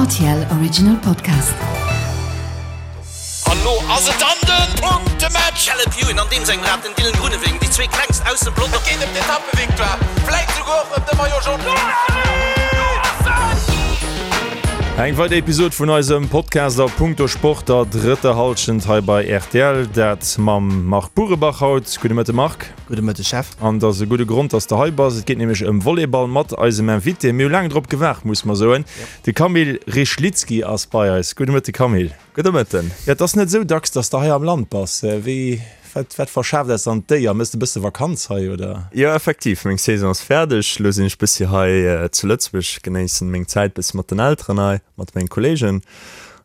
RTL Original Podcast. An lo ass et dann den Punktematch! Caleb Ewan an deem sengem Rad, den Dylan Groenewegen, déi zwee klengst aus dem Pelotong. Et geet ëm d'Etappevictoire, vläit souguer och ëm de Maillot Jaune. Eng weider Episod vun eisem Podcast a Punkto Sport der drëtter Hallschent hei bei rtl. Dat mam Marc Burebach haut. Gudde Mëtte Marc. Gudde Mëtteg Jeff. An et ass e gudde Grond, dass de hei bass. Et geet nämlech ëm Volleyball mat eisem Invité. Mir hu laang drop gewaart, muss mer soen. De Kamil Rychlicki ass bei eis. Gudde Mëtte Kamil. Gudde Mëtten. Jo, et ass net esou dacks, dass de hei am Land bass. Wéi, wat, wat verschaaft eis dann d'Éier? Méchs de e bësse Vakanz hei, oder? Jo, effektiv, meng Saison ass fäerdeg. Elo sinn ech bëssi hei zu Lëtzebuerg, genéissen meng Zäit bëssi mat den Elteren hei, mat mengen Kollegen.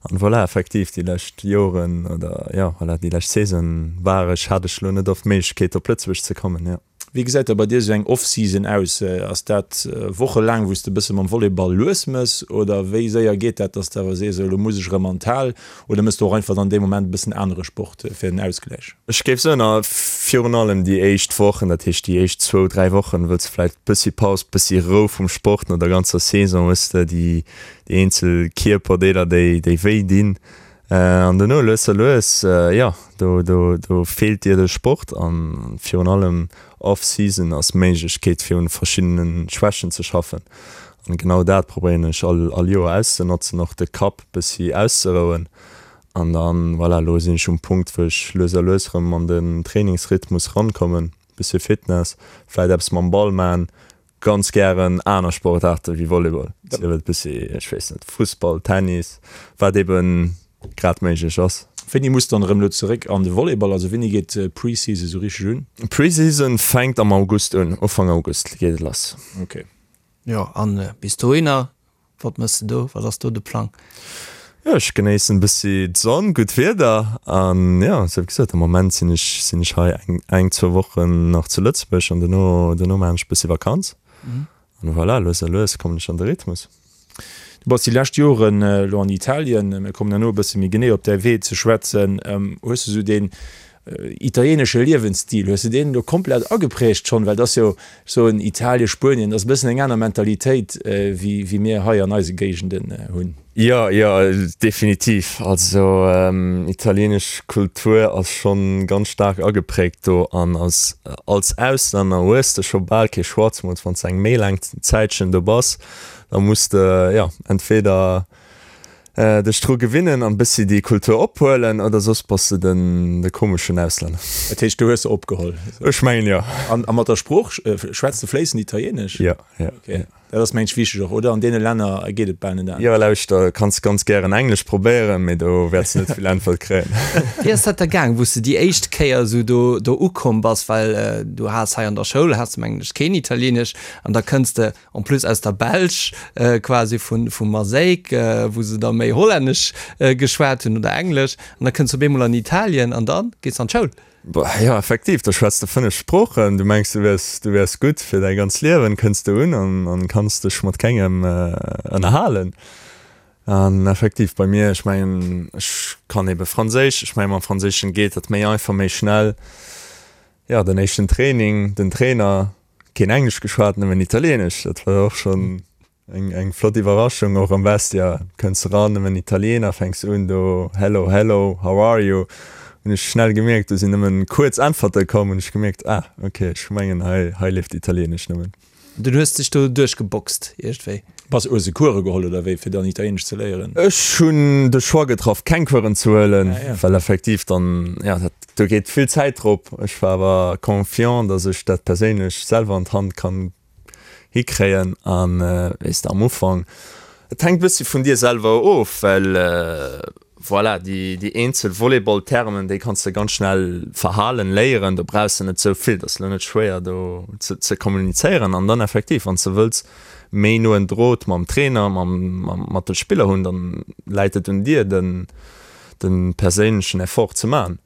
An voilà, effektiv, déi lescht Joren oder jo, voilà, déi lescht Saison war ech, hat ech elo net oft d'Méiglechkeet op Lëtzebuerg ze kommen, jo. Wéi gesäit da bei dir esou eng Off-Season aus? Ass dat wochelaang, wou s de e bësse mam Volleyball lues mëss oder wéi séier geet dat, dass de awer sees, elo muss ech erëm an d'Hal oder mëss de och einfach dann dee Moment e bëssen anere Sport fir den Ausgläich? Ech géif soen, a virun allem déi éischt Wochen, dat heescht déi éischt zwou, dräi Wochen, wëlls de vläicht bëssi Paus, bëssi Rou vum Sport no der ganzer Saison, hues de déi eenzel Kierperdeeler, déi déi wéi dinn. An dono lues a lues, jo, do do do feelt dir de Sport an virun allem off-season ass d'Méiglechkeet fir un verschiddene Schwächen ze schaffen. An genau dat probéieren ech all all Joer auszenotzen, och de Kapp bëssi auszerouen. An dann, voilà, elo sinn ech um Punkt wou ech lues a lues erëm an den Trainingsrhythmus rankommen, bëssi Fitness, vläit eppes mam Ball man, Ganz gären aner Sportaarte wéi Volleyball, sief et bëssi, ech weess net, Fussball, Tennis, wat eben grad méiglech ass. Wéini muss dann erëm elo zeréck an de Volleyball? Also wéini geet d'Preseason esou richteg un? D'Preseason fänkt am August un, Ufank August geet et lass. Ok. Jo, an bis dohinner Wat mëss de do? Wat ass do de Plang? Jo, ech genéissen bëssi d'Sonn, gutt Wieder an jo, sou wéi gesot, am Moment sinn ech sinn ech hei eng eng zwou Wochen nach zu Lëtzebuerg an dono dono maachen ech bëssi Vakanz an voilà, lues a lues kommen ech an de Rhythmus. Du bass déi lescht Joren elo an Italien, mir kommen herno e bësse méi genee op däi Wee ze schwätzen. Hues de sou deen Italienesche Liewensstil, hues de deen elo komplett ageprägt schonn? Well et ass jo, ech soen Italien, Spuenien, dat ass e bëssen eng aner Mentalitéit wéi mir hei an eise Géigenden hunn. Jo, jo, definitiv. Also italienesch Kultur ass schonn ganz staark ageprägt do an als als Auslänner hues de scho bal kee Choix, zemools wann s de eng méi laang Zäitchen do bass, da muss de, jo, entweder Dech dru gewinnen an bëssi déi Kultur ophuelen oder soss bass de den de komeschen Auslänner. Dat heescht du hues se opgeholl? Ech mengen jo. An a mat der Sprooch, schwätz de fléissend Italienesch? Jo, jo. Ok, dat ass mengen ech wichteg och, oder? An deene Länner geet et bal net anescht. Jo, lauschter, kanns ganz gären Englesch probéieren, mee do wäerts de net vill Äntwert kréien. Wéi ass dat da gaang, wou s de déi éischt Kéier esou do do ukomm bass? Well du has hei an der Schoul has de mengen ech keen Italienesch an da kënns de En plus aus der Belsch, quasi vu vu Maaseik, wou se da méi Hollännesch geschwat hunn oder Englesch. An da kënns du op eemol an Italien an da gees de an d'Schoul. Jo, effektiv, da schwätz de 5 Sproochen. Du mengs, du wiers, du wiers gutt fir däi ganzt Liewen, kënns du un an an kanns dech mat kengem ënnerhalen. An effektiv, bei mir, ech mengen, ech kann ebe Franséisch, ech mengen, mam Franséischen geet dat méi einfach, méi schnell. Jo, den éischten Training, den Trainer, Keen Englesch geschwat, nëmmen Italienesch. Dat war och schonn eng, eng flott Iwwerraschung. Och am Vestiaire kënns de ran, nëmmen Italiener, fänks un do Hello, hello, how are you? Hunn ech schnell gemierkt, do sinn nëmmen kuerz Äntwerte komm, hunn ech gemierkt, ah, ok, ech mengen hei, hei leeft Italienesch nëmmen. Dunn hues dech do duerchgeboxt iergendwéi? Bass, hues de Course geholl oder wéi, fir dann Italienesch ze léieren? Ech hunn de Choix getraff, keng Coursen ze huelen, well effektiv dann, ja, dat, do geet vill Zäit drop. Ech war awer confiant, dass ech dat perséinlech selwer an d'Hand kann hikréien. An, weess de, am Ufank, et hänkt e bëssi vun dir selwer of, well, Voilà, déi, déi eenzel Volleyball-Termen, déi kanns de ganz schnell verhalen, léieren. Do brauchs de net esou vill, dat ass elo net schwéier do ze, ze kommunizéieren. An dann effektiv, wann s de wëlls méi noen Drot mam Trainer, mam, mam, mat de Spiller hunn, dann läit et un dir, den, de perséinlechen Effort ze man.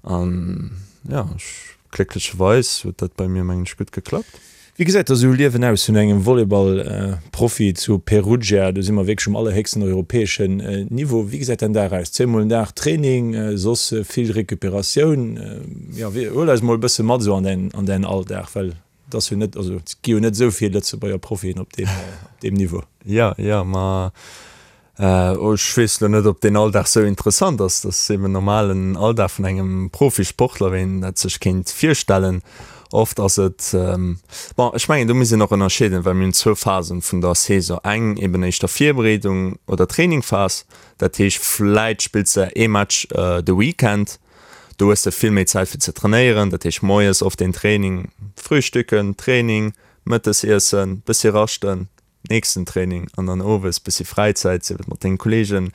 An jo, ech, glécklecherweis huet dat bei mir, mengen ech, gutt geklappt. Wéi gesäit da sou e Liewen aus vun engem Volleyball-Profi zu Perugia? Do si mer wierklech um allerhéchsten europäeschen Niveau. Wéi gesäit däin Dag aus? Zweemol den Dag Training, soss vill Recuperatioun? Jo, huel eis mol e bësse mat esou an däin, an däin Alldag, well et ass jo net, also et gi jo net esou vill Lëtzebuerger Profien op deem, op deem Niveau. Jo, jo, ma. Ech weess elo net, ob deen Alldag sou interessant ass. Dat ass eben normalen Alldag vun engem Profisportler, wéi een dat sech kéint virstellen. Oft ass et, bon, ech mengen, do muss een och ënnerscheeden, well mir hunn zwou Phasen vun der Saison. Eng eben éischter Virbereedung oder Trainingphas, dat heescht, vläit spills de ee Match de Weekend, do hues de vill méi Zäit fir ze trainéieren, dat heescht moies oft een Training, Frühstücken, Training, Mëttes iessen, bëssi raschten, nächsten Training an dann owes bëssi Fräizäit, sief et mat dengen Kollegen.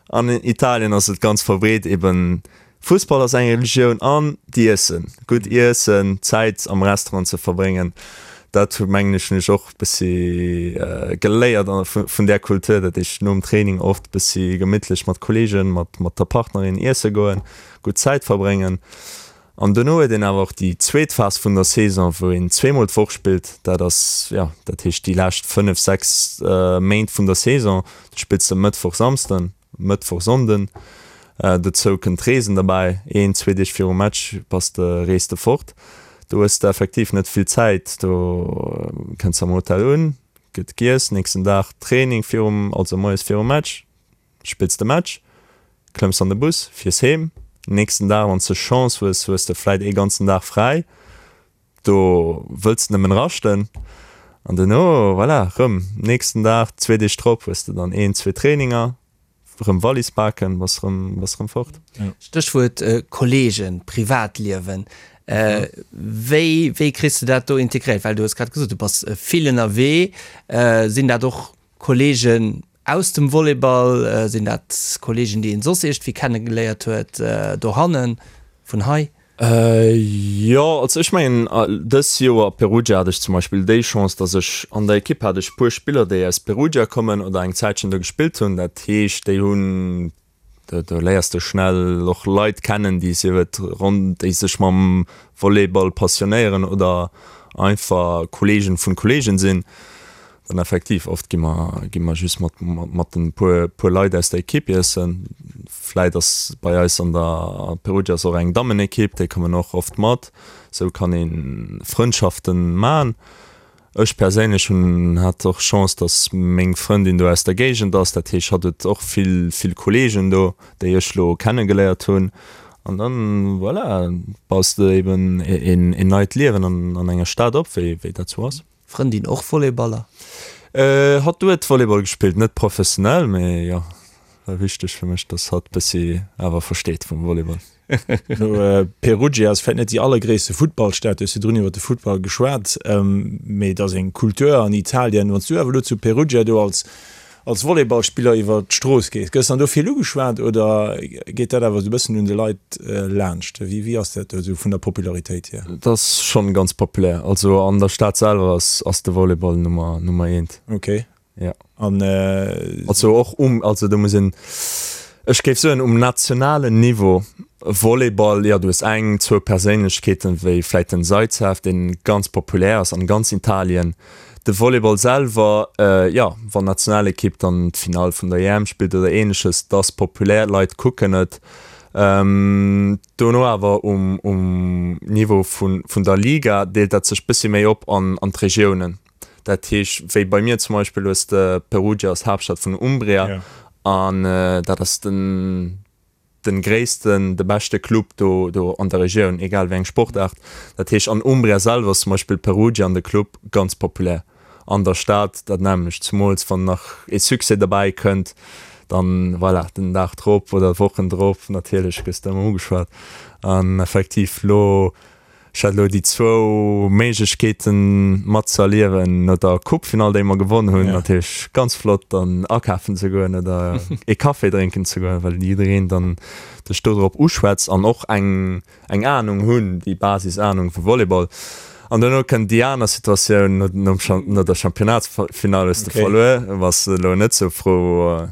An Italien ass et ganz verbreet eben, Fussball ass eng Religioun an d'Iessen, gutt iessen, Zäit am Restaurant ze verbréngen, dat hu mengen ech hunn ech och bëssi geléiert vun där Kultur, dat ech nom Training oft bëssi gemittlech mat Kollegen, mat mat der Partnerin iesse goen, gutt Zäit verbréngen. An dono huet een awer och déi zweet Phas vun der Saison, wou een zweemol d'Woch spillt. Dat ass, jo, dat heescht déi lescht 5, 6 Méint vun der Saison. Du spills de Mëttwoch, Samsden, Mëttwoch, Sonnden. Dozou kënnt d'Reesen derbäi. Een, zwee Deeg virum Match bass de, rees de fort. Do hues de effektiv net vill Zäit. Do kënns de am Hotel un, gëtt giess, nächsten Dag Training virum, also moies virum Match. Spills de Match, klëmms an de Bus, fiers heem. Nächsten Dag, wann s de Chance hues, hues de vläit ee ganzen Dag fräi. Do wëlls de nëmmen raschten. An duerno, voilà, rëm nächsten Dag, zwee Deeg drop hues de dann een, zwee Traininger, rëm Wallis paken, bass rëm, bass rëm fort. Stéchwuert Kollegen, Privatliewen. Wéi, wéi kriss de dat do integréiert? Well du hues grad gesot, du bass vill ënnerwee. Sinn dat och Kollegen Aus dem Volleyball, sinn dat Kollegen déi een soss iergendwéi kennegeléiert huet dohannen, vun hei? Jo, also ech mengen dës Joer a Perugia hat ech zum Beispill déi Chance, datt ech an der Ekipp hat ech puer Spiller déi aus Perugia kommen oder eng Zäitchen do gespillt hunn. Dat heescht déi hunn Do léiers de schnell och Leit kennen, déi sief et ronn, déi sech mam Volleyball passionéieren oder einfach Kollegen vun Kollegen sinn. Dann effektiv, oft gi mer, gi mer just mat, mat den puer, puer Leit aus der Ekipp iessen. Vläit ass bei eis an der Perugia ass och eng Dammenekipp, déi kommen och oft mat. Sou kann ee Frëndschaften man. Ech perséinlech hunn hat och Chance, dass meng Frëndin do aus der Géigend ass. Dat heescht, hatt huet och vill, vill Kolleegen do, déi ech lo kennegeléiert hunn. An dann, voilà, baus de eben een, een neit Liewen an, an enger Stad op, wéi, wéi dat sou ass. Frëndin och Volleyballer? Hatt huet Volleyball gespillt, net professionell, mee jo, war wichteg fir mech, dass hatt bëssi awer versteet vum Volleyball. No Perugia ass vläit net déi allergréisste Futtballstad, du hues virdrun iwwer de Futtball geschwat, mee et ass eng Kultur an Italien. Wann s du awer elo zu Perugia do als als Volleyballspiller iwwer d'Strooss gees, gëss dann do vill ugeschwat oder geet dat awer esou e bëssen un de Leit laanscht? Wéi wéi ass dat do esou vun der Popularitéit hier? Et ass schonn ganz populär. Also an der Stad selwer ass ass de Volleyball Nummer Nummer eent. Okay. Ja. An also och um, also do muss een, ech géif soen um nationalen Niveau, Volleyball, jo du hues eng, zwou Perséinlechkeeten, wéi vläit den Zaitsev, deen ganz populär ass an ganz Italien. De Volleyball selwer, jo, wann d'Nationalekipp dann d'Finall vun der EM spillt oder ähnleches, dat ass populär, d'Leit kucken et. Dono awer um um Niveau vun vun der Liga deelt dat sech bëssi méi op an an d'Regiounen. Dat heescht, wéi bei mir zum Beispill hues de Perugia ass d'Haaptstad vun Umbria an dat ass den den gréissten, de beschte Club do do an der Regioun, egal wéi eng Sportaart. Dat heescht an Umbria selwer ass zum Beispill Perugia an de Club ganz populär an der Stad dat nämmlecht, zumools wann nach ee Succès derbäi kënnt, dann voilà, den Dag drop oder Wochen drop natierlech gëss de ëmmer ugeschwat an effektiv lo Ech hat elo déi zwou Méiglechkeeten mat ze erliewen, no der Coupefinall, déi mer gewonn hunn, natierlech ganz flott dann akafen ze goen oder ee Café drénken ze goen, well jiddereen dann dech do drop uschwätzt an och eng eng Anung hunn, déi Basisanung vu Volleyball. An duerno kënnt déi aner Situatioun, no no der Championnatsfinall hues de verluer, bass elo net sou frou.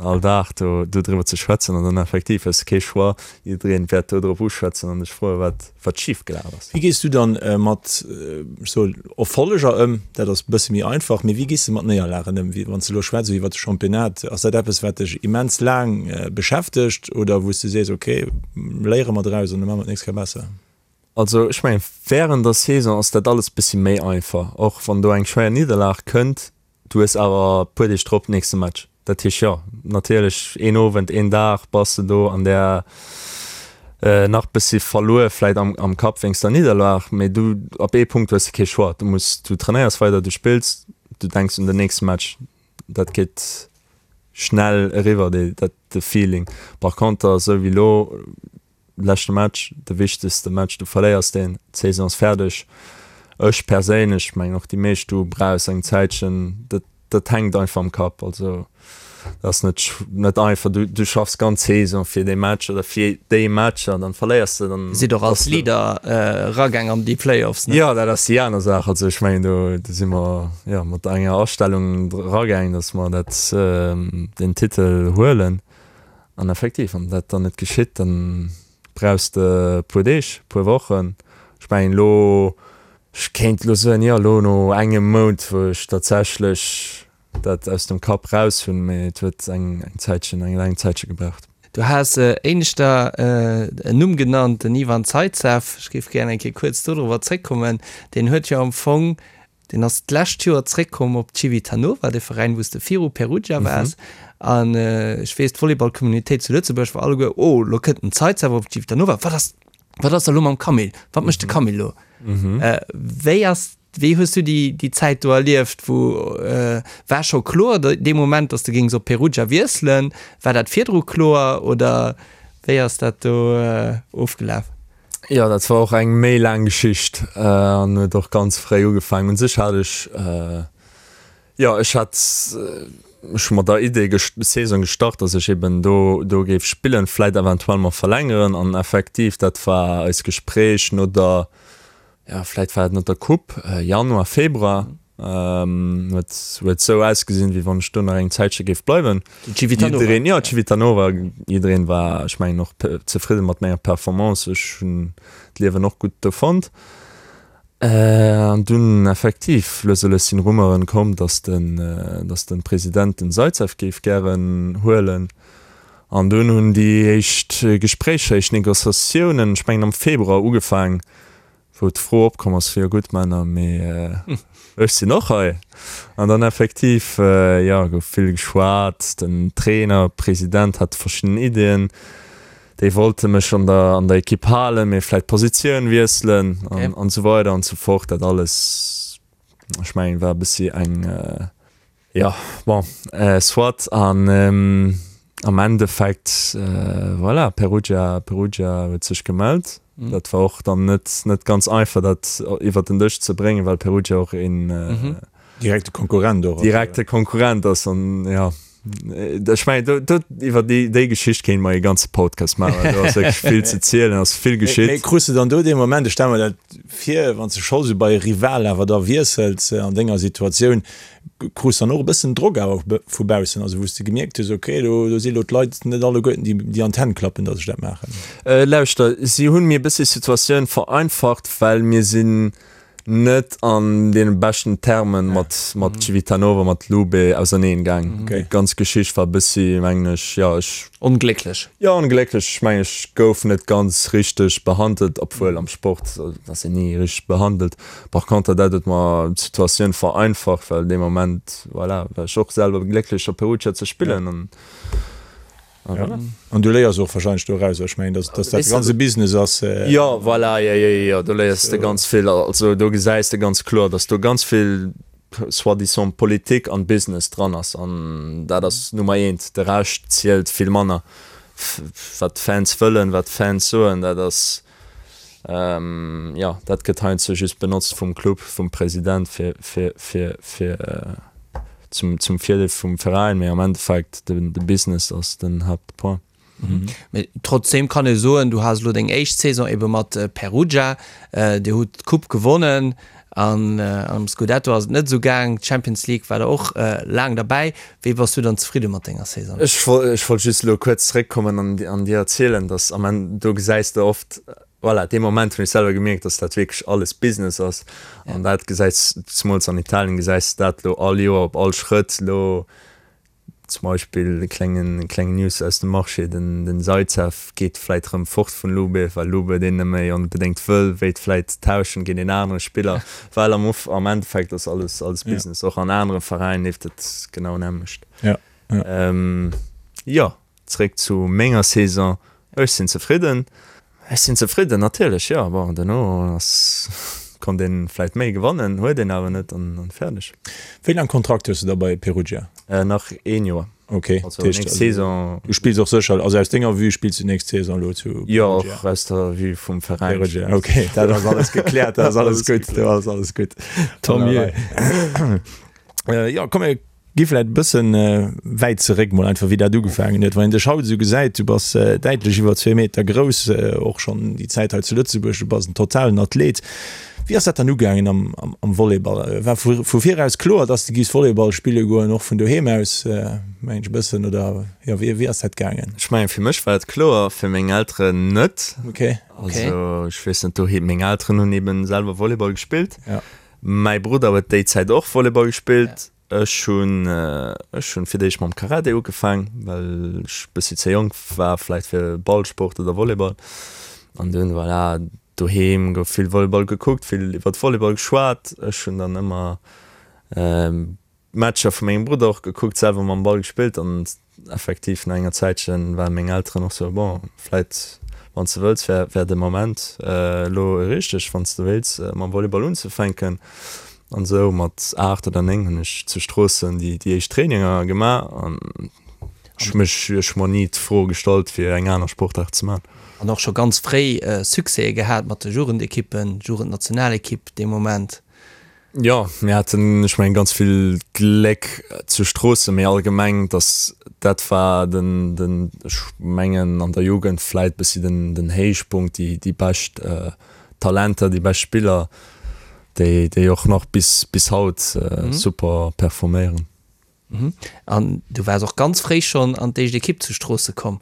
all Dag do dodriwwer ze schwätzen an dann effektiv hues de kee Choix, jiddereen wäert do drop uschwätzen an dech froen, wat wat schif gelaf ass. Wéi gees du dann mat, ech soe Erfolleger ëm? Dat ass e bësse méi einfach, mee wéi gees de mat Néierlagen ëm? Wéi wann s de elo schwätz iwwer de Championnat, ass dat eppes wat dech immens laang beschäftegt oder wou s de sees, ok, léiere mer draus an da maache mer d'nächst Kéier besser? Also ech mengen wärend der Saison ass dat alles bëssi méi einfach, och wann do eng schwéier Nidderlag kënnt, Du hues awer puer Deeg drop nächste Match. Dat heescht, jo, natierlech een Owend, een Dag bass de do an där nach bëssi verluer vläit am, am Kapp wéinst der Nidderlag, mee du, ab ee Punkt hues de kee Choix, du muss, du trainéiers weider, du spills, du denks un den nächste Match, dat geet schnell eriwwer, dee, dat, de Feeling. Par conter, esou wéi elo, Leschte Match, de wichtegste Match, du verléiers deen, d'Saison ass fäerdeg. Ech perséinlech, mengen och déi meescht, du brauchs eng Zäitchen, dat dat hänkt einfach am Kapp. Also dat ass net net einfach, du du schaffs ganz Saison fir dee Match oder fir déi Matcher, dann verléiers de, dann Sidd och als Leader eragaang an déi Playoffs, ne? Jo, dat ass déi aner Saach. Also ech mengen do do si mer jo mat enger Astellung eragaang, datt mer dat deen Titel huelen. An effektiv, wann dat dann net geschitt, dann brauchs de e puer Deeg, e puer Wochen. Ech mengen elo, ech kéint elo soen, jo, elo no engem Mount, wou ech tatsächlech dat aus dem Kapp raus hunn, mee et huet eng Zäitchen, eng laang Zäitche gebraucht. Du has éineschter en Numm genannt, den Ivan Zaitsev. Ech géif gären eng Kéier kuerz dodrower zréckkommen. Deen huet jo am Fong Deen ass d'lescht Joer zréckkomm op Civitanova, de Veräin, wou s de viru Perugia waars. An ech weess, d'Volleyball-Communitéit zu Lëtzebuerg war alleguer, Oh, lo kënnt den Zaitsev op Civitanova. Wat ass, wat ass da lo mam Camille? Wat mécht de Camille lo? Wéi ass, wéi hues du déi, déi Zäit do erlieft? Wou, war scho kloer dee Moment, datt s de géings op Perugia wiesselen? War dat virdru kloer oder wéi ass dat do ofgelaf? Jo, dat war och eng méi laang Geschicht an huet och ganz fréi ugefaangen. Un sech hat ech, jo, ech hat, ech hu mat der Idee Saison gestart, datt ech eben do do géif spillen, vläit eventuell mer verlängeren. An effektiv, dat war eis Gespréich no der, jo, vläit war et no der Coupe, Januar, Februar. Huet huet sou ausgesinn, wéi wann ech do nach eng Zäitche géif bleiwen. Civitanova. Jiddereen, jo, Civitanova, jiddereen war, ech mengen, och zefridde mat menger Performance. Ech hunn d'Liewen och gutt do fonnt. An dunn effektiv, lues a lues sinn Rumeuren komm, dass den, dass den President den Zaitsev géif gären huelen. An dunn hunn déi éischt Gespréicher, éischt Negociatiounen, ech mengen am Februar ugefaang, wou d'Fro opkomm ass, jo gutt Männer, mee ech sinn och hei. An dann effektiv, jo, gouf vill geschwat, den Trainer, President hat verschidden Iddien, déi wollte mech an der an der Ekipp halen, mee vläit d'Positioun wiesselen an an esou weider an esou fort. Dat alles, ech mengen, war e bëssi eng, Jo, bon, soit. An am Endeffekt, voilà, Perugia, Perugia huet sech gemellt. Dat war och dann net, net ganz einfach, dat iwwert den Dësch ze bréngen, well Perugia och een Direkte Konkurrent och ass. Direkte Konkurrent ass. An jo, ech mengen, do, do, iwwer déi, déi Geschicht kéinte mer ee ganze Podcast maachen, well do ass wierklech vill ze zielen, ass vill geschitt. Mee krus de dann do dee Moment, ech stelle mer dat vir, wann s de scho sou bei e Rival awer da wiessels an denger Situatioun, Krus dann och e bëssen Drock awer vu baussen, also wou s de gemierkt hues, ok, do do si lo d'Leit net alleguerten déi déi an d'Hänn klappen, datt ech dat maachen? Lauschter, si hunn mir e bëssi d'Situatioun vereinfacht, well mir sinn net an deene beschten Termen mat mat Civitanova, mat Lube auserneen gaang. Déi ganz Geschicht war e bëssi, mengen ech, jo, ech. Onglécklech. Jo, onglécklech. Ech mengen, ech gouf net ganz richteg behandelt, obwuel am Sport ass een ni richteg behandelt. Par conter, dat huet mer d'Situatioun vereinfacht, well dee Moment, voilà, war ech och selwer glécklech op Perugia ze spillen an a voilà. An du léiers och wahrscheinlech doraus, ech mengen, dass dass dat ganz e Business ass. Jo, voilà, jo, jo, jo, do léiers de ganz vill. Also do gesäis de ganz kloer, dass do ganz vill soi-disant Politik an Business dran ass an dat ass Nummer eent. De Rescht zielt vill manner. Wat d'Fans wëllen, wat d'Fans soen, dat ass. Jo, dat gëtt heiansdo just benotzt vum Club, vum President fir, fir, fir, fir zum, zum Virdeel vum Veräin, mee am Endeffekt de, de Business ass den Haaptpoint. Mee trotzdeem kann ee soen, du has elo deng éischt Saison ebe mat Perugia, Dir hutt d'Coupe gewonnen an am Scudetto ass et net esou gaang, d'Champions League war der och laang derbäi. Wéi bass du dann zefridde mat denger Saison? Ech ech wollt just elo kuerz zeréckkommen an an dir erzielen, dass am Enn, do gesäis de oft, voilà, dee Moment hunn ech selwer gemierkt, dass dat wierklech alles Business ass an dat gesäis, zemools an Italien gesäis de dat elo all Joer op all Schrëtt elo. Zum Beispill e klengen kleng News aus dem Marché, den den Zaitsev geet vläit rëm fort vun Lube, well Lube deen net méi onbedéngt wëll, wéilt vläit tauschen géint een anere Spiller, well am Of am Endeffekt ass alles alles Business. Och an anere Veräin leeft et genau nämmlecht. Jo. Jo, zeréck zu menger Saison, ech sinn zefridden. Ech sinn zefridden, natierlech, jo. Bon, duerno ass, konnt een vläit méi gewannen, huet een awer net an fäerdeg. Wéi laang Kontrakt hues de da bei Perugia? Nach een Joer. Ok, also nächst Saison. Du spills och sécher, also aus denger Vue spills du nächst Saison elo zu Perugia? Jo, och aus der Vue vum Veräin. Perugia, ok, dat ass alles gekläert, dat ass alles gutt, do ass alles gutt. Tant mieux. Jo, komm mir Gi vläit e bëssen wäit zeréck mol einfach wéi dat ugefaangen huet. Wann een dech haut esou gesäit, du bass däitlech iwwer zwee Meter grouss, och schonn déi Zäit hei zu Lëtzebuerg, du bass en totalen Athlet. Wéi ass dat dann ugaangen am am Volleyball? War vu vu viraus kloer, dass de giffs Volleyball spille goen, och vun doheem aus mengen ech e bëssen, oder jo wéi wéi ass dat gaangen? Ech mengen fir mech war et kloer, fir meng Elteren net. Okay. Also ech weess net, doheem meng Elteren hunn eben selwer Volleyball gespillt. Mäi Brudder huet déi Zäit och Volleyball gespillt. Ech hunn ech hunn fir d'éischt mam Karate ugefaang, well ech bëssi ze jonk war vläicht fir Ballsport oder Volleyball. An dunn, voilà, doheem gouf vill Volleyball gekuckt, vill iwwert Volleyball geschwat. Ech hunn dann ëmmer Matcher vu mengem Brudder och gekuckt, selwer mam Ball gespillt an effektiv no enger Zäitchen waren meng Elteren och sou, bon, vläit wann s de wëlls wär wär de Moment elo richteg, wann s de wéilts mam Volleyball unzefänken. An sou mat 8 oder 9 hunn ech zu Stroossen déi déi éischt Traininger gemaach an ech hu mech ech hu mer ni d'Fro gestallt fir eng aner Sportaart ze man. An och scho ganz fréi Succèse gehat mat de Jugendekippen, Jugendnationalekipp dee Moment. Jo, mir haten, ech mengen, ganz vill Gléck zu Stroossen, mee allgemeng, dass dat war den, den, ech mengen, an der Jugend vläit bëssi den, den Héichpunkt, déi, déi bescht Talenter, déi bescht Spiller, déi, déi och nach bis, bis haut super performéieren. An du waars och ganz fréi schonn an d'éischt Ekipp zu Stroosse komm.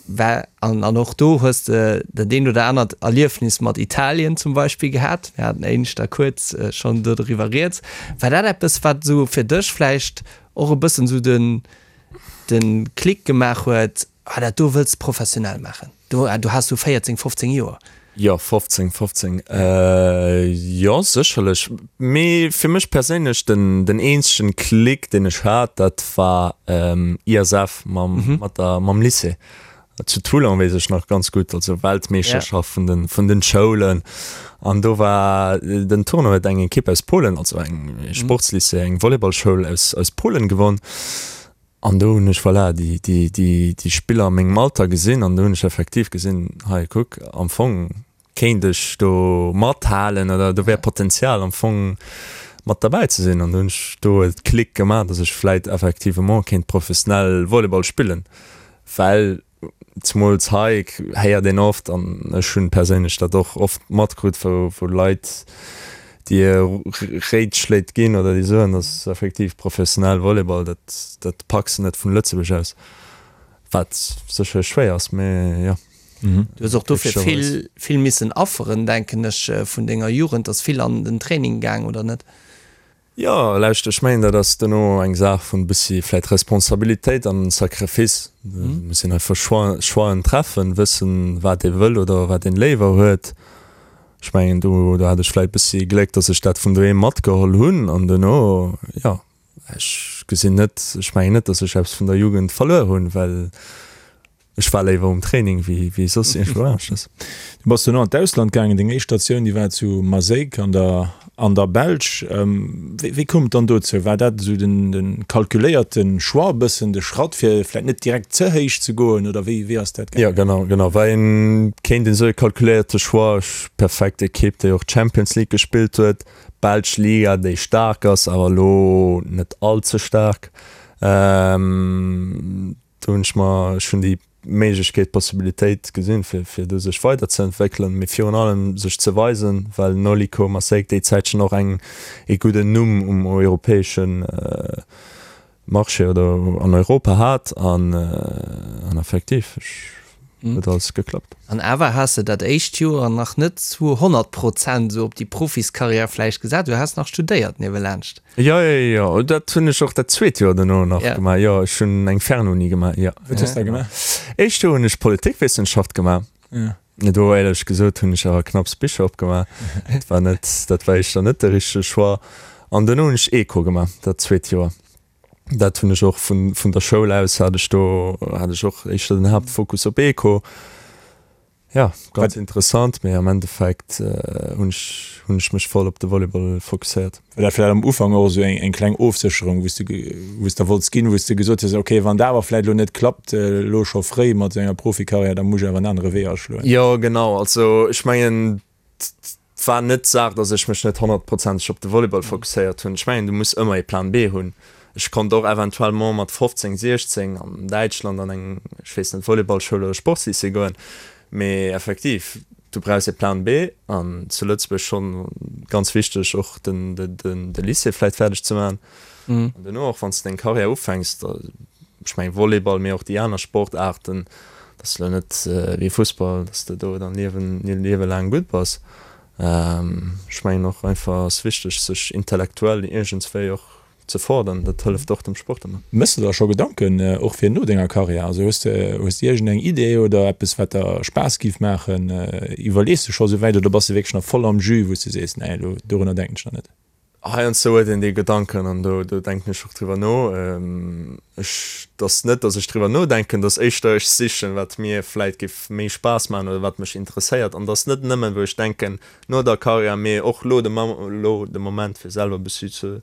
War, an an och do hues de dat eent oder anert Erliefnis mat Italien zum Beispill gehat. Mir haten éineschter kuerz schonn do doriwwer rieds. War dat eppes, wat esou fir dech vläicht och e bëssen esou den, de Klick gemaach huet, Ah, dat do wëlls de professionell maachen? Do, do has du 14, 15 Joer. Jo, 15, 15, jo, sécherlech. Mee fir mech perséinlech den, den eenzegen Klick, deen ech hat, dat war ISF mam, mat der, mam Lycée. Zu Toulon, weess ech nach ganz gutt, also Weltmeeschterschaft vun den, vun den Schoulen. An do war den Tournoi huet eng Ekipp aus Polen, also eng Sportslycée, eng Volleyballschoul aus, aus Polen gewonn. An do hunn ech, voilà, déi, déi, déi, déi Spiller a mengem Alter gesinn an do hunn ech effektiv gesinn, hei kuck, am Fong kéint ech do mathalen oder do wär Potenzial am Fong mat derbäi ze sinn. An do hunn ech do e Klick gemaach, datt ech vläit effectivement kéint professionell Volleyball spillen, well Zemools hei héiert een oft, an ech hunn perséinlech dat och oft matkrut, wou Leit dir Réitschléit ginn oder déi soen, dass effektiv professionell Volleyball, dat dat packs de net vun Lëtzebuerg aus, wat sécherlech schwéier ass, mee jo. Du hues och dofir vill vill missen afferen, denken ech, vun denger Jugend, ass vill an den Training gaang, oder net? Jo, lauscht, ech mengen, dat ass duerno eng Saach vun e bëssi vläit Responsabilitéit an Sacrifice. Et muss een einfach Choixen treffen, wëssen, wat ee wëll oder wat een léiwer huet. Ech mengen, do do hat ech vläit e bëssi Gléck, datt ech dat vun doheem matgeholl hunn an duerno, jo, ech gesinn net, ech mengen net, datt ech eppes vun der Jugend verluer hunn, well Ech war léiwer um Training wéi soss iergendwou aneschters. Du bass duerno an d'Ausland gaangen. Deng éischt Statioun, déi war zu Maaseik an der an der Belsch. Wéi wéi koum et dann dozou? War dat esou den de kalkuléierte Choix, e bëssen de Schratt, fir vläicht net direkt ze héich ze goen, oder wéi wéi ass dat gaangen? Jo, genau, genau. War een, kéint een soe kalkuléierte Choix. Ech, perfekt Ekipp, déi och d'Champions League gespillt huet, belsch Liga, déi staark ass, awer elo net all ze staark. Do hunn ech mer, ech hunn déi Méiglechkeet, d'Possibilitéit gesinn, fir, fir do sech weiderzeentwéckelen, mee virun allem sech ze weisen, well Noliko Maaseik déi Zäitchen och eng, ee gudden Numm um europäesche Marché oder an Europa hat an, an effektiv, ech, huet alles geklappt. An awer has de dat éischt Joer nach net zu 100 Prozent esou op déi Profiskarriär vläicht gesat, du has nach studéiert niewelaanscht. Jo, jo, jo, dat hunn ech och dat zweet Joer duerno nach gemaach. Jo, ech hunn eng Fernuni gemaach, jo. Wat hues de da gemaach? Éischt Joer hunn ech Politikwissenschaft gemaach. Do, éierlech gesot, hunn ech awer knapps Bicher opgemaach. Dat war net, dat war éischter net de richtege Choix. An duerno hunn ech Eco gemaach, dat zweet Joer. Dat hunn ech och vun, vun der Schoul aus hat ech do, hat ech och éischter den Haaptfokus op Eco. Ja, ganz interessant, mee am Endeffekt hunn ech, hunn ech mech voll op de Volleyball fokusséiert. War dat vläicht am Ufank och esou eng, eng kleng Ofsécherung, wou s de, wou s de wollts ginn, wou s de gesot hues, ok, wann dat awer vläicht elo net klappt, elo scho fréi mat esou enger Profikarriär, da muss ech awer en anere Wee aschloen? Jo, genau. Also ech mengen, Et war net d'Saach, datt ech mech net honnertprozenteg op de Volleyball fokusséiert hunn. Ech mengen, du muss ëmmer ee Plan B hunn. Ech konnt och eventuellement mat 15, 16 an Däitschland an eng, ech weess net, Volleyballschoul oder Sportslycée goen. Mee effektiv, du brauchs ee Plan B an zu Lëtzebuerg schonn ganz wichteg och den, de Lycée vläicht fäerdeg ze maachen. An duerno och wann s de deng Karriär ufänks, da, ech mengen Volleyball, mee och déi aner Sportaarten, dat ass elo net wéi Fussball, datt s de do dann Liewen, Liewe laang gutt bass. Ech mengen och einfach ass wichteg sech intellektuell iergendswéi och ze fordern, dat hëlleft och dem Sport ëmmer. Méchs de der scho Gedanken och fir no denger Karriär? Also hues de, hues de iergendeng Idee oder eppes wat der Spaass giff maachen? Iwwerlees de scho souwäit oder bass de wierklech nach voll am Jus, wou s de sees, nee elo dorunner denken ech nach net? Heiansdo huet een déi Gedanken an do do denken ech och driwwer no. Ech, et ass net, datt ech driwwer nodenken, et ass éischter ech sichen, wat mir vläit géif méi Spaass maachen oder wat mech interesséiert. An et ass net nëmmen, wou ech denken no der Karriär, mee och lo de lo de Moment fir selwer e bëssi ze,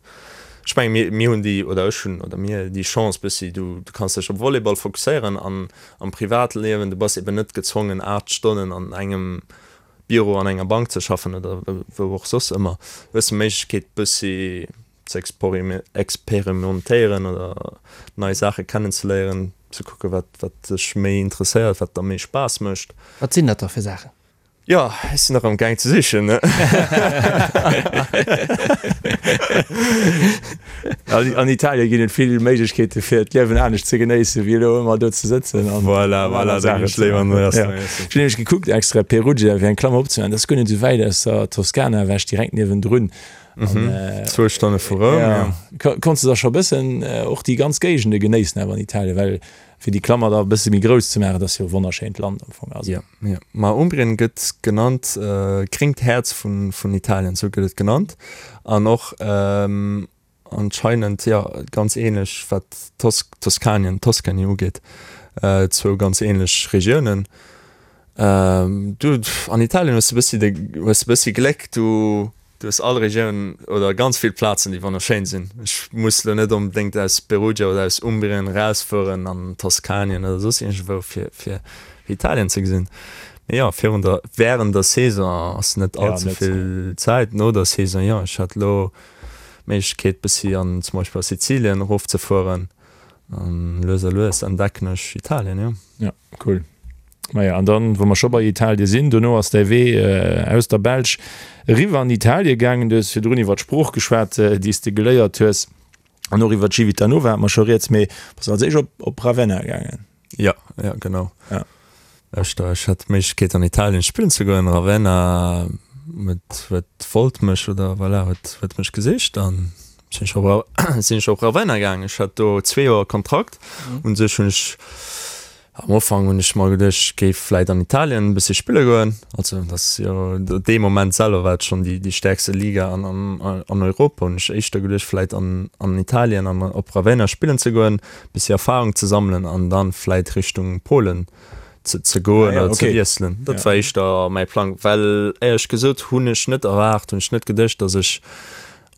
ech mengen mir mir hunn déi oder ech hunn oder mir déi Chance bëssi, du du kanns dech op Volleyball fokusséieren an am Privatliewen, du bass eben net gezwongen 8 Stonnen an engem Büro an enger Bank ze schaffen oder wou och soss ëmmer, hues de Méiglechkeet bëssi ze experimentéieren oder nei Saache kennenzeléieren, ze kucke wat wat dech méi interesséiert, wat der méi Spaass mécht. Wat sinn dat da fir Saachen? Jo, ech sinn nach am gaang ze sichen, ne? An Italien ginn et vill Méiglechkeete fir d'Liewen anescht ze genéissen, wéi elo ëmmer do ze sëtzen an Voilà, voilà, da ginn ech léiwer an den Restaurant iessen. Ech hunn nämlech gekuckt extra Perugia fir eng Klammer opzemaachen, dat ass guer net esou wäit aus der Toskana ewech, direkt niewendrun. An Zwou Stonne vu Roum, jo. Konns de da scho bëssen och déi ganz Géigende genéissen awer an Italien? Well fir déi Klammer da e bësse méi grouss ze maachen, dat ass jo e wonnerschéint Land am Fong. Also. Jo, jo. Ma Umbrien gëtt genannt gréngt Häerz vun, vun Italien, esou gëtt et genannt. An och anscheinend, jo, ganz ähnlech wat Tos, Toskanien, Tuscany ugeet, zwou ganz ähnlech Regiounen. Du, an Italien hues de bëssi de, hues de bëssi Gléck, du, du hues all Regioun oder ganz vill Plazen, déi wonnerschéin sinn. Ech muss lo net onbedéngt aus Perugia oder aus Umbrien erausfueren an Toskanien oder soss iergendwou, fir, fir Italien ze gesinn. Mee jo, virun der, wärend der Saison ass net all ze vill Zäit. No der Saison, jo, ech hat lo d'Méiglechkeet bëssi an zum Beispill a Sizilien erofzefueren an lues a lues entdecken ech Italien, jo. Ja, cool. Maja, an dann, wou mer scho bei Italie sinn, dono ass däi Wee aus der Belsch eriwwer an Italie gaangen. Du hues virdrun iwwer d'Sprooch geschwat, déi s de geléiert hues, an och iwwer Civitanova hate mer scho rieds, mee bass als éischt op, op Ravenna gaangen. Ja, ja, genau. Ja. Ech, ech hat d'Méiglechkeet an Italien spillen ze goen. Ravenna huet, huet, wollt mech oder voilà, huet, huet mech gesicht an sinn ech op, sinn ech op Ravenna gaangen. Ech hat do zwee Joer Kontrakt. Un sech hunn ech Am Ufank hunn ech mer geduecht, ech géif vläit an Italien e bëssi spille goen. Also dat ass jo dee Moment selwer war et schonn déi déi stäerkste Liga an an an Europa. Hunn ech éischter geduecht, vläit an an Italien an op Ravenna spillen ze goen, bëssi Erfarung ze sammelen an dann vläit Richtung Polen ze ze goen oder ze wiesselen. Dat war éischter mäi Plang, well éierlech gesot hunn ech net erwaart, hunn ech net geduecht, datt ech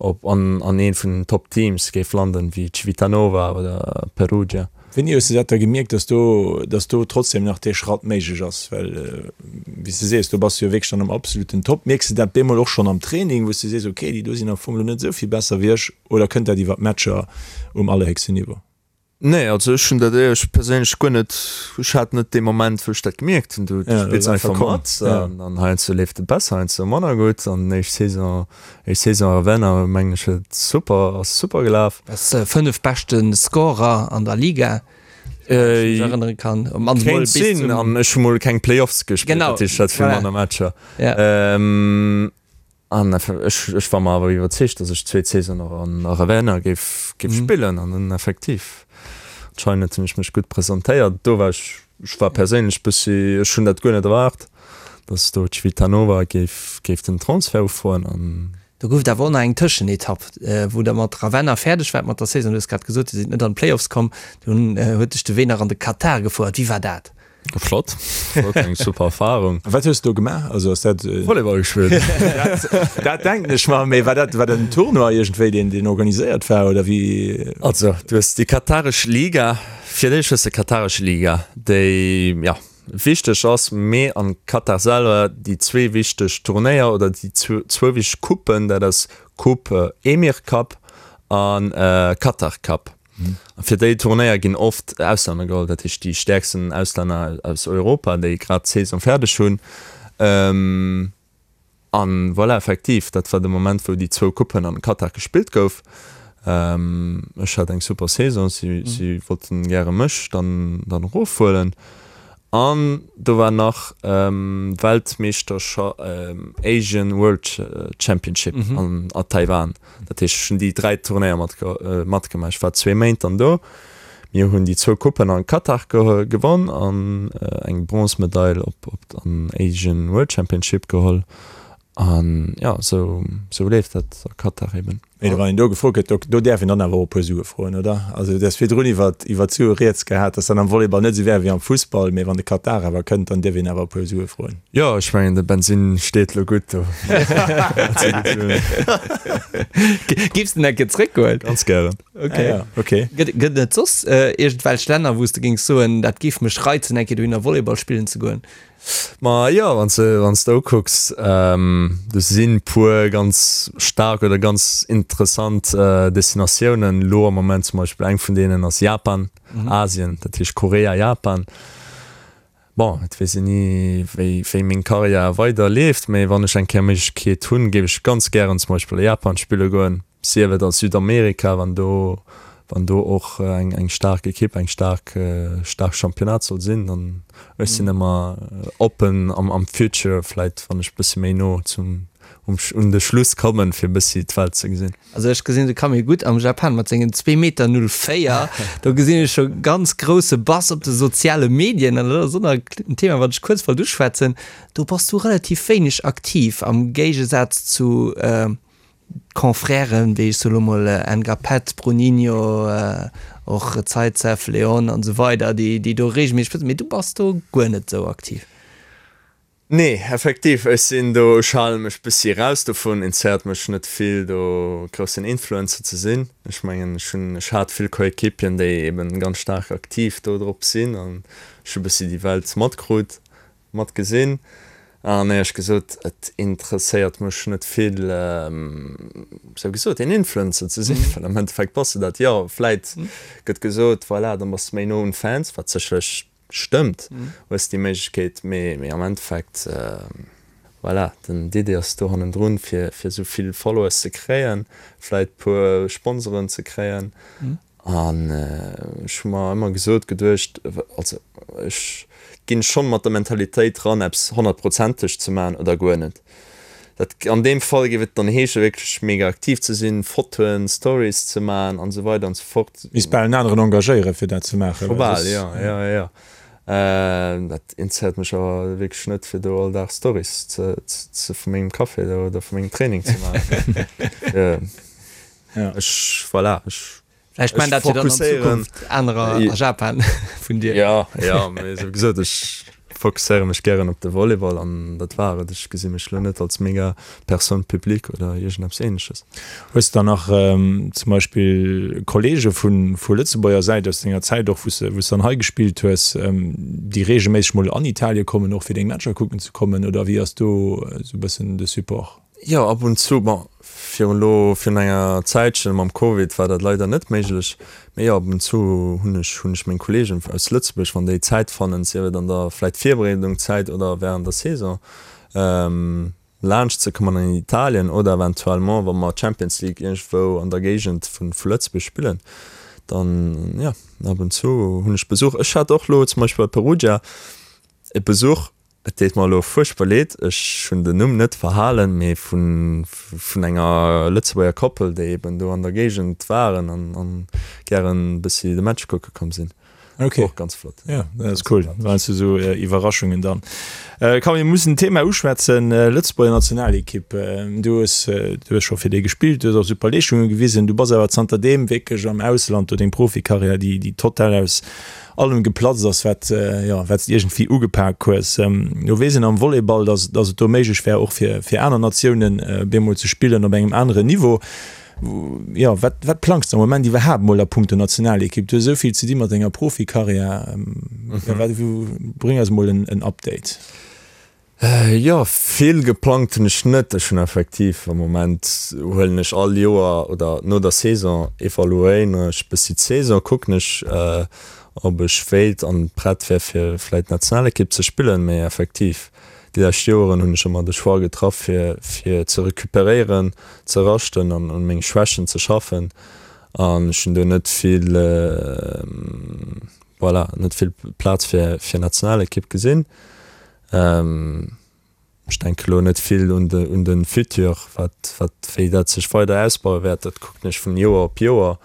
op an an een vun den Top Teams géif landen wéi Civitanova oder Perugia. Wéini hues de dat da gemierkt, dass do, dass do trotzdem nach dee Schratt méiglech ass? Well wéi s de sees, do bass de jo wierklech dann am absoluten Top. Mierks de dat bemol och schonn am Training, wou s de sees, okay, déi do sinn am Fong elo net esou vill besser wéi ech, oder kënnt dat iwwer d'Matcher um allerhéchsten Niveau? Nee, also ech hunn dat éierlech perséinlech guer net, ech hat net dee Moment, wou ech dat gemierkt hunn. Du spills einfach mat an dann heiansdo leeft et besser, heiansdo manner gutt. An éischt Saison, éischt Saison a Ravenna mengen ech huet super, ass super gelaf. Bass 5 beschte Scorer an der Liga, wann ech mech erënnere kann. Op mannst mol bis zum. Kéint sinn, an ech hu mol keng Playoffs gespillt, dat heescht ech hat vill manner Matcher. An ech, ech war mer awer iwwerzeegt, datt ech d'zweet Saison och an Ravenna géif, géif spillen. An dann effektiv, anscheinend hunn ech mech gutt presentéiert. Do war ech, ech war perséinlech bëssi, ech hunn dat guer net erwaart, datt do Civitanova géif, géif den Transfert ufroen. An. Do gouf et awer och nach eng Tëschenetapp, wou der mat Ravenna fäerdeg waart mat der Saison. Du hues grad gesot, Dir sidd net an d'Playoffs komm. Dunn huet dech de Wee nach an de Katar gefouert. Wéi war dat? Flott, flott, eng super Erfahrung. A wat hues de do gemaach? Also ass dat. Volleyball gespillt. Dat, dat denken ech mer, mee war dat, war dat en Tournoi iergendwéi, deen, deen organiséiert war oder wéi? Also, du hues déi kataresch Liga, fir d'éischt hues de kataresch Liga, déi, jo, wichteg ass, mee am Katar selwer déi zwee wichteg Turnéier oder déi zwou wichteg Coupen, dat ass Coupe Emir Cup a Qatar Cup. A fir déi Turnéier ginn oft Auslänner geholl, dat heescht déi stäerksten Auslänner aus Europa, déi grad d'Saison fäerdeg hunn. An voilà, effektiv, dat war de Moment, wou déi zwou Coupen an Katar gespillt gouf. Ech hat eng super Saison, si, si wollten gäre mech dann, dann erofhuelen. An do war nach Weltmeeschterscha-, Asian World Championship an a Taiwan. Dat heescht, ech hunn déi 3 Turnéier matgemaach. Ech war zwee Méint dann do. Mir hunn déi zwou Coupen an Katar gewonn an eng Bronzemedail op an Asian World Championship geholl. An jo, esou esou leeft dat a Katar eben. Mee wann een do gefrot gëtt, do do däerf een dann awer och e puer Sue froen, oder? Also du hues virdrun iwwer iwwer d'Sue rieds gehat, dass dann am Volleyball net esou wär wéi am Fussball, mee wann de Katar awer kënnt, dann dierf een awer e puer Sue froen. Jo, ech mengen de Bensin steet lo gutt do. Giffs den eng Kéier zréckgoen? Ganz gären. Okay. Ah, ja. Okay. Gëtt gëtt et soss äh, iergendwelch Länner, wou s de géings soen, dat géif mech reizen, eng Kéier dohinner Volleyball spillen ze goen? Ma jo, wann s de wann s de ukucks, ähm, do sinn puer ganz staark oder ganz interessant äh, Destinatiounen lo am Moment. Zum Beispill eng vun deenen ass Japan, Asien, dat heescht Korea, Japan. Bon, et weess een ni, wéi, wéi meng Karriär weider leeft, mee wann ech eng Kéier Méiglechkeet hunn, géif ech ganz gären zum Beispill a Japan spille goen, sief et a Südamerika, wann do, wann do och eng, eng staark Ekipp, eng staark, staark Championnat soll sinn, dann, ech sinn ëmmer oppen am, am Future, vläit wann ech bëssi méi no zum, um, un de Schluss kommen, fir e bëssi d'Welt ze gesinn. Also ech gesinn de Camille gutt am Japan mat sengen zwee Meter 04. Do gesinn ech scho ganz grousse Bass op de soziale Medien an dat ass och nach en Thema wat ech kuerz wollt uschwätzen. Do bass du relativ wéineg aktiv am Géigesaz zu Confrèren wéi ech soe lo mol Ngapeth, Bruninho, och Zaitsev, Leon an esou weider déi do regelméisseg posten. Mee du bass do guer net esou aktiv. Nee, effektiv, ech sinn do, ech hale mech bëssi eraus dovun, interesséiert mech net vill do groussen Influencer ze sinn. Ech mengen, ech hunn, ech hat vill Coéquipieren, déi eben ganz staark aktiv do drop sinn an ech hu bëssi déi Welt matkrut, matgesinn an éierlech gesot, et interesséiert mech net vill, sou gesot, een Influencer ze sinn, well am Endeffekt bass de dat jo. Vläit gëtt gesot, voilà, dann bass de méi no un Fans, wat sécherlech Stëmmt, hues déi Méiglechkeet, mee am Endeffekt, voilà, den d'Idee ass do hannendrun, fir fir esou vill Followers ze kréien, vläit puer Sponsoren ze kréien. An ech hu mer ëmmer gesot, geduecht, also ech ginn schonn mat der Mentalitéit ran, eppes honnertprozenteg ze maachen oder guer net. Dat, an deem Fall géif et dann heesche wierklech mega aktiv ze sinn, Fotoen, Stories ze maachen an esou weider an esou fort. Misst bal en aneren engagéieren fir dat ze maachen. Scho bal, jo, jo, jo. Dat interesséiert mech awer wierklech net fir do all Dag Stories ze, ze vu mengem Café do oder vu mengem Training ze maachen. Ech, voilà, ech. Vläicht man dat jo dann an Zukunft anerer a Japan vun dir. Jo, jo, mee sou gesot, ech fokusséiere mech gären op de Volleyball an dat war et. Ech gesi mech elo net als mega Personne publique oder iergendeppes Ähnleches. Hues de dann nach zum Beispill Kollege vu vu Lëtzebuerger Säit aus denger Zäit och, wou s de wou s de dann hei gespillt hues, déi reegelméisseg mol an Italie kommen, och fir deng Matcher kucken ze kommen, oder wéi ass do sou e bëssen de Support? Jo, ab und zu. Bon, virun elo, virun enger Zäitchen mam Covid war dat leider net méiglech. Mee jo, ab und zu hunn ech, hunn ech meng Kollegen aus Lëtzebuerg, wann déi Zäit fannen, sief et an der vläit Virbereedungszäit oder während der Saison, laanscht ze kommen an Italien oder eventuellement, wa mer Champions League iergendwou an der Géigend vu Lëtzebuerg spillen, dann jo, ab und zu hunn ech Besuch. Ech hat och elo zum Beispill bei Perugia e Besuch. Et deet mer elo fuerchtbar leed, ech hunn den Numm net verhalen, mee vun enger Lëtzebuerger Koppel, déi eben do an der Géigend waren an gären e bëssi de Match kucke komm sinn. Okay. Och ganz flott. Ja, dat ass cool. Dat waren esou Iwwerraschungen dann. Komm, mir mussen d'Thema uschwätzen, Lëtzebuerger Nationalekipp. Du hues, du hues scho fir déi gespillt, du hues och super Leeschtunge gewisen. Du bass awer zanter deem wierklech am Ausland, do deng Profikarriär, déi, déi total aus allem geplatzt ass, wat, jo, wat s de iergendwéi ugepak hues. Lo weess een am Volleyball, dass, dass et do méiglech wär, och fir, fir aner Natiounen bemol ze spillen op engem aneren Niveau. Jo, wat, wat plangs de am Moment iwwerhaapt mol a punkto Nationalekipp? Du hues esou vill ze di mat denger Profikarriär. Jo, wat, bréng eis mol en, en Update. Jo, vill geplangt hunn ech net. Ech hunn effektiv am Moment huelen ech all Joer oder no der Saison evaluéieren ech bëssi d'Saison, kucken ech ob ech wéilt an prett wär fir vläit Nationalekipp ze spillen. Mee effektiv déi lescht Joeren hunn ech ëmmer de Choix getraff fir fir ze recuperéieren, ze raschten an un menge Schwächen ze schaffen an ech hunn do net vill voilà net vill Plaz fir fir Nationalekipp gesinn. Ech denke elo net vill un de, un de Futur, wat, wat, wéi dat sech weider ausbaue wäert. Dat kucken ech vun Joer op Joer.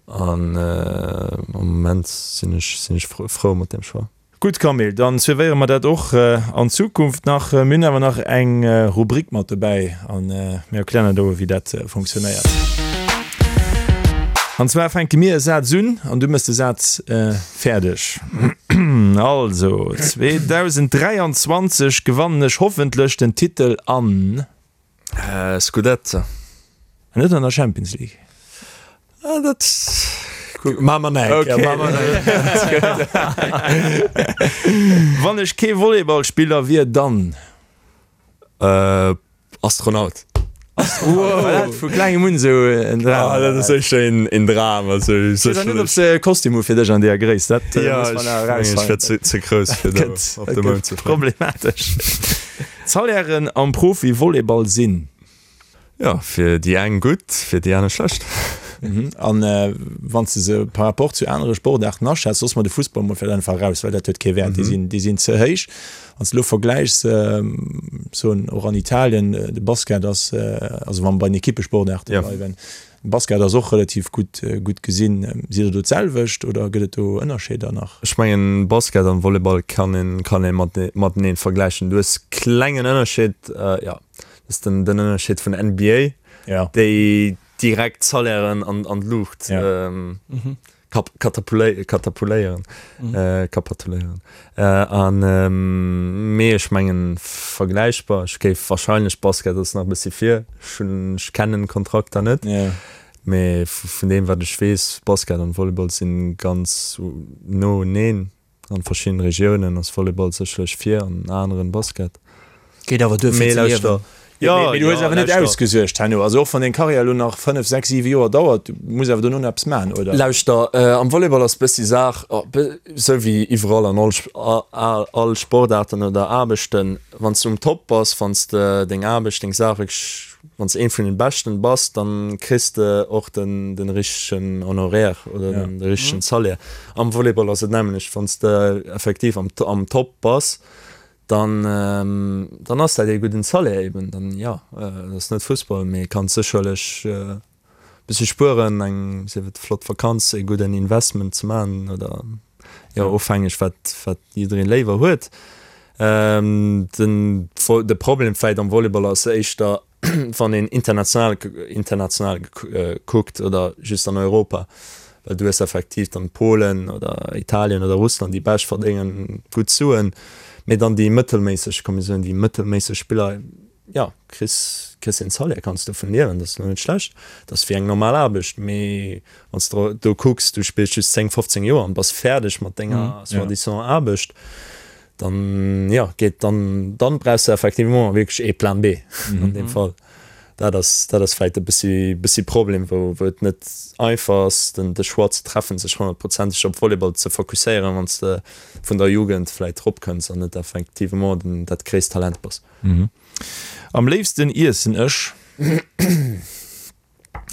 An am Moment sinn ech, sinn ech frou mat deem Choix. Gutt Camille, dann suivéiere mer dat och an Zukunft nach. Mir hunn awer nach eng Rubrik mat dobäi a mir erklären der elo, wéi dat funktionéiert. An zwar fänke mir e Saz un an du mëss de Saz fäerdeg. Also, 2023 gewannen ech hoffentlech den Titel an. Scudetto. An net an der Champions League. Ah, dat maache mer nach eng Kéier. Wann ech kee Volleyballspiller wier, dann. Astronaut. Wow. Vu klengem un esou en Dram. Ah, dat ass éischter een, een Dram. Also, Ech weess net, ob se e Kostüm hu fir dech an deeër Gréisst. Dat ja, muss man nach erausfannen. Ech wär ze, ze grouss fir do op de Mound ze fléien. Problematesch. D'Salairen am Profi-Volleyball sinn. Jo, fir déi eng gutt, fir déi aner schlecht. An wann s de se par rapport zu anere Sportaarten aschätz, loosse mer de Fussball mol vläicht einfach eraus, well dat huet kee Wäert, déi sinn, déi sinn ze héich. Wann s de elo vergläichs, soen och an Italien, de Basket ass, also wa mer bei den Ekippesportaarte bleiwen, de Basket ass och relativ gutt, gutt gesinn. Sidd Der do d'selwecht oder gëtt et do Ënnerscheeder nach? Ech mengen, Basket an Volleyball kann een, kann ee matenee vergläichen. Du hues klengen Ënnerscheed, jo. Dat ass den, den Ënnerscheed vun NBA, ja. déi direkt Salairen an, an d'Luucht ja. ähm, mhm. kap, katapulé, katapuléieren. Mhm. Äh, kapatuléieren. Äh, an ähm, mee ech mengen vergläichbar. Ech géif wahrscheinlech Basket ass nach e bëssi vir. Ech hunn, ech kennen d'Kontrakter net. Ja. Mee vun deem wat ech weess, Basket an Volleyball sinn ganz no uneen. An verschiddenen Regiounen ass Volleyball sécherlech vir, an aneren Basket. Geet awer duer fir ze liewen. Jo, mee du hues awer net ausgesuergt herno. Also och wann deng Karriär elo nach 5, 6, 7 Joer dauert, du muss awer dono nach eppes maachen, oder? Lauschter, am Volleyball ass bëssi Saach, esou wéi iwwerall an all all Sportaarten oder Aarbechten, wann s du um Top bass, wann s de deng Aarbecht, deng Saach wierklech Wann s de een vun den Beschten bass, dann kriss de och den den richtegen Honoraire oder den richtegen Salaire. Am Volleyball ass et nämmlecht, wann s de effektiv am am Top bass, dann dann ass dat ee gudden Salaire eben. Dann jo, et ass net Fussball, mee kanns sécherlech e bëssi spueren, eng sief et flott Vakanz, ee gudden Investment ze maachen oder jo ofhängeg wat wat jiddereen léiwer huet. Den de Problem vläit am Volleyball ass éischter wann een international international kuckt oder just an Europa, well du hues effektiv dann Polen oder Italien oder Russland déi bescht verdéngen gutt Suen, mee dann déi mëttelméisseg, komm mir soen déi mëttelméisseg Spiller, jo kriss kriss een Salaire, kanns dovun liewen, dat ass lo net schlecht, dat ass wéi eng normal Aarbecht, mee wann s de do kucks, du spills just 10, 15 Joer an bass fäerdeg mat denger soi-disant Aarbecht, Dann, jo, geet dann, dann brauchs de effectivement wierklech ee Plan B an deem Fall. Dat ass, dat ass vläicht e bëssi, bëssi Problem, wou, wou et net einfach ass, den, de Choix ze treffen, sech honnertprozenteg op Volleyball ze fokusséieren, wann s de vun der Jugend vläicht eropkënns an net effectivement den, dat gréisst Talent bass. Am léifsten iessen ech.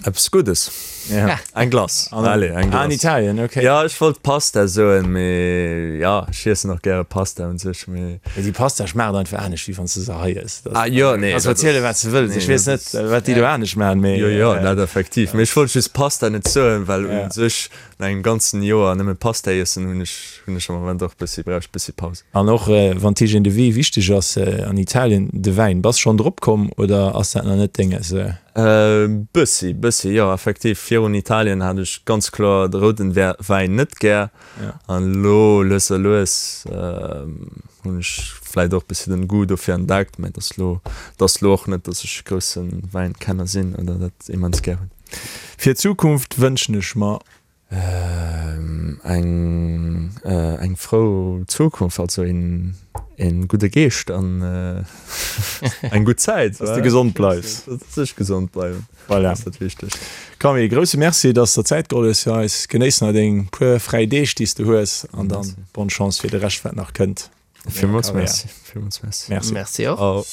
Eppes Guddes. Ja. Eng Glace. Allez, eng Glace. Ah, an Italien, okay. Ja, ech wollt Pasta soen, mee ja, ech iessen och gäre Pasta un sech, mee. Mee déi Pasta schmaacht einfach anescht, wéi wann s de se hei ëss. Ah jo, nee. Kanns verzielen, wat s de wëlls. Ech weess net, wat déi do anescht maachen, mee. Jo, jo, dat effektiv. Mee ech wollt just Pasta net soen, well un sech no engem ganzen Joer nëmme Pasta iessen hunn ech, hunn ech am Moment och bëssi, brauch ech bëssi Paus. An och wann d'Hygiène de vie wichteg ass an Italien, de Wäin, bass schonn drop komm oder ass dat nach net dénges? Bëssi, bëssi, jo, effektiv. Virun Italien hat ech ganz kloer de rouden Wäin net gär. An elo lues a lues hunn ech vläit och bëssi den Goût dofir entdeckt. Mä et ass elo, et ass elo och net, dass ech e grousse Wäinkenner sinn oder dat immens gär hunn. Fir d'Zukunft wënschen ech mer. Eng eng frou Zukunft, also een een gudde Geescht an eng gutt Zäit. Dass de gesond bleifs. Dass ech gesond bleiwen, voilà, ass dat Wichtegst. Camille, grousse Merci, dass de der Zäit geholl hues fir eis. Genéiss nach deng puer fräi Deeg, déi s de hues an dann bonne Chance fir de Rescht, wat nach kënnt. Villmools Merci. Villmools Merci. Merci. Merci och.